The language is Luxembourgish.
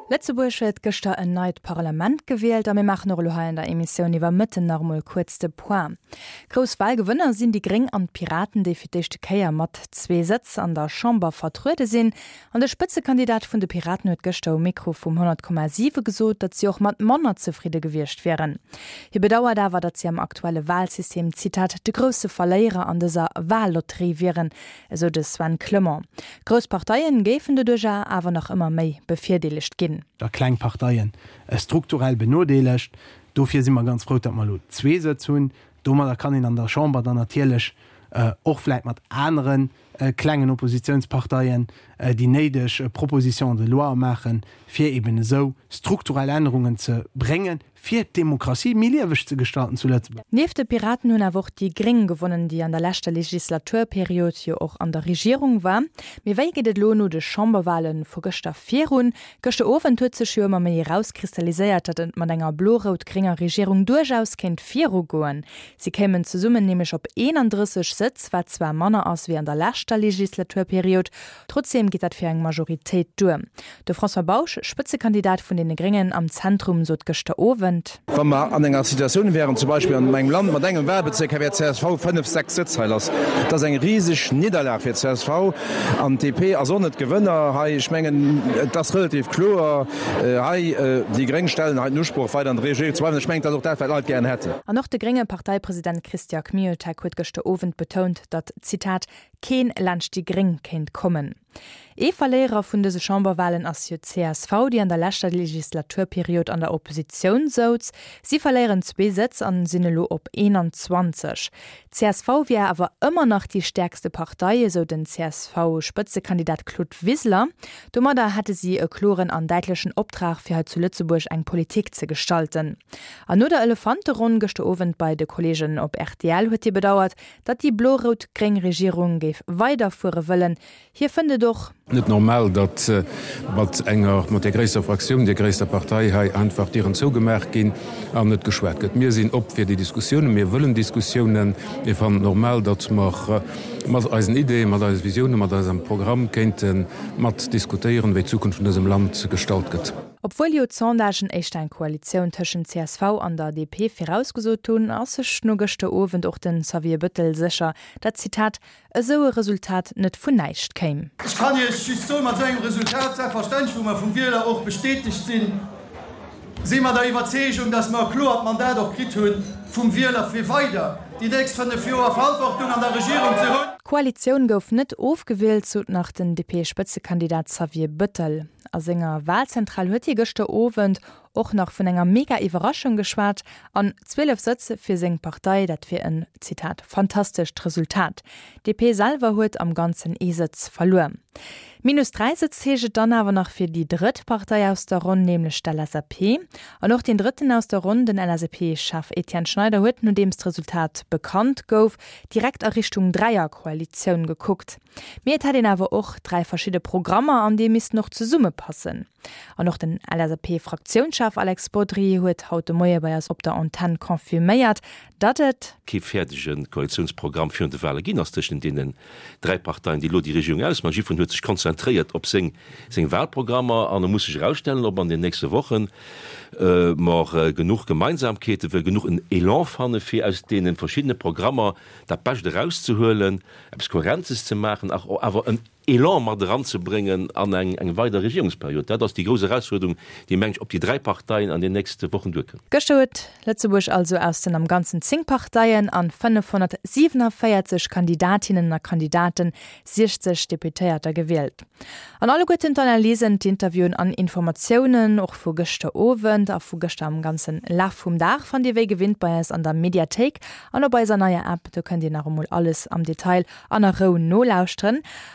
Lëtzebuerg huet gëschter en neit Parlament gewielt a mir maachen och elo hei an der Emissioun iwwer Mëtten nach emol kuerz de Point. Grouss Walgewënner sinn déi Gréng an d'Piraten, déi fir d'éischte Kéier mat zwee Sëtz an der Chamber vertruede sinn. An de Spëtzekandidat vun de Piraten huet gëschter um Mikro vum 100,7 gesot, datt si och mat manner zefridde gewiescht wieren. Hie bedauert awer, datt si am aktuelle Walsystem, Zitat, de grousse Verléierer an dëser Wallotterie wieren, esou de Sven Clement. Grouss Parteien géifen doduercher awer nach ëmmer méi bevirdeelegt ginn. A kleng Parteien strukturell benodeelegt. Dofir si mer ganz frou, datt mer elo zwee Sëtz hunn. Domadder kann een an der Chamber dann natierlech och vläit mat anere klengen Oppositionsparteien déi néideg Propositions de loi maachen, fir eben esou strukturell Ännerungen ze bréngen, fir d'Demokratie méi lieweg ze gestalten zu Lëtzebuerg. Nieft de Piraten hunn awer och déi Gréng gewonnen, déi an der leschter Legislaturperiod jo och an der Regierung war. Mee wéi geet et elo no de Chamberwale vu gëschter virun? Gëschter Owend huet sech jo ëmmer méi erauskristalliséiert, datt et mat enger blo-rout-grénger Regierung duerchaus kéint virugoen. Si kéimen zesummen nämlech op 31 Sëtz, wat zwar manner ass wéi an der leschter Legislaturperiod, Trotzdeem geet dat fir eng Majoritéit duer. De François Bausch, Spëtzekandidat vun deene Gréngen am Zentrum, sot gëschter Owend. Wa mer an enger Situatioun wären, zum Beispill an engem Land mat engem Wahlbezierk, hei wär csv 5, 6 Sëtz hei lass. Dat ass eng riseg Nidderlag fir csv an d'DP ass och net Gewënner hei. Ech mengen, et ass relativ kloer hei, déi Gréng stellen hei den Usproch, weider an der Regierung ze bleiwen. Ech mengen, dat ass och dat, wat d'Leit gären hätten. An och de grénge Parteipresident Christian Kmiotek huet gëschter Owend betount, datt, Zitat, keen laanscht déi Gréng kéint kommen. Ee Verléierer vun dëse Chamberwalen ass jo d'CSV, déi an der leschter Legislaturperiod an der Oppositioun souz. Si verléieren zwee Sëtz an sinn elo op 21. D'CSV wier awer ëmmer nach déi stäerkste Partei, esou den CSV-Spëtzekandidat Claude Wiseler. Domadder hätte si e kloren an däitlechen Optrag, fir hei zu Lëtzebuerg eng Politik ze gestalten. An no der Elefanteronn gëschter Owend bei de Kolleegen op rtl huet hie bedauert, Datt déi blo-rout-gréng Regierung géif weiderfuere wëllen. Hie fënnt et och. Net normal, datt mat enger, mat där gréisster Fraktioun, där gréisster Partei hei einfach d'Dieren zougemaach ginn an net geschwat gëtt. Mir sinn op fir déi Diskussiounen, mir wëllen Diskussiounen. Mir fannen et normal, datt mer mat eisen Ideeën, mat eise Visiounen, mat eisem Programm kéinte mat diskutéieren, wéi d'Zukunft vun dësem Land gestalt gëtt. Obwuel jo d'Sondagen éischter eng Koalitioun tëschent csv an der DP virausgesot hunn, ass sech no gëschter Owend och de Xavier Bëttel sécher, dat, Zitat, esou e Resultat net vun näischt kéim. Ech kann Iech just soen, mat esou engem Resultat, selbstverständlech, wou mer vum Wieler och bestätegt sinn, si mer der Iwwerzeegung, dass mer e kloert Mandat och kritt hu vum Wieler, fir weider déi nächst 5 Joer Verantwortung an der Regierung ze hunn. D'Koalitioun gouf net ofgewielt, sot nach den DP-Spëtzekandidat Xavier Bëttel. A senger Walzentral huet hie gëschter Owend och nach vun enger mega Iwwerraschung geschwat an 12 Sëtz fir seng Partei, dat wier en, Zitat, fantastescht Resultat. D'DP selwer huet am Ganzen ee Sëtz verluer. Minus 3 Sëtz heescht et dann awer nach fir déi drëtt Partei aus der Ronn, nämlech d'LSAP. An och deen drëtten aus der Ronn, den LSAP-Chef Etienne Schneider huet, nodeems d'Resultat bekannt gouf, direkt a Richtung Dräierkoalitioun gekuckt. Mee et hätt een awer och 3 verschidde Programmer an déi missten och zesummepassen. An och den LSAP-Fraktiounschef Alex Bodry huet haut de Moie bei eis op der Antenn confirméiert, datt et. Kee fäerdege Koalitiounsprogramm virun de Wale ginn ass tëschent deenen 3 Parteien, déi elo déi Regierung ausmaachen. Jiddwereen huet sech konzentréiert op seng seng Walprogrammer an e muss sech erausstellen, ob an den nächste Wochen mer genuch Gemeinsamkeete, genuch en Elan fanne fir aus deene verschiddene Programmer dat Bescht erauszehuelen. eppes Kohärentes ze maachen, awer en Elan mat eranzebréngen an eng weider Regierungsperiod. Dat ass déi grouss Erausfuerderung, déi, meng ech, op déi 3 Parteien an den nächste Wochen duerkënnt. Gëschter huet Lëtzebuerg also aus den am Ganzen 10 Parteien an 547 Kandidatinnen a Kandidaten 60 Deputéierter gewielt. An alleguerten d'Analysen, d'Interviewen an Informatiounen, och vu gëschter Owend a vu gëschter am ganzen Laf vum Dag, fannt Dir wéi gewinnt bei eis an der Mediathéik an op eiser neier App. Do kënnt Dir nach emol alles am Detail an a Rou nolauschteren.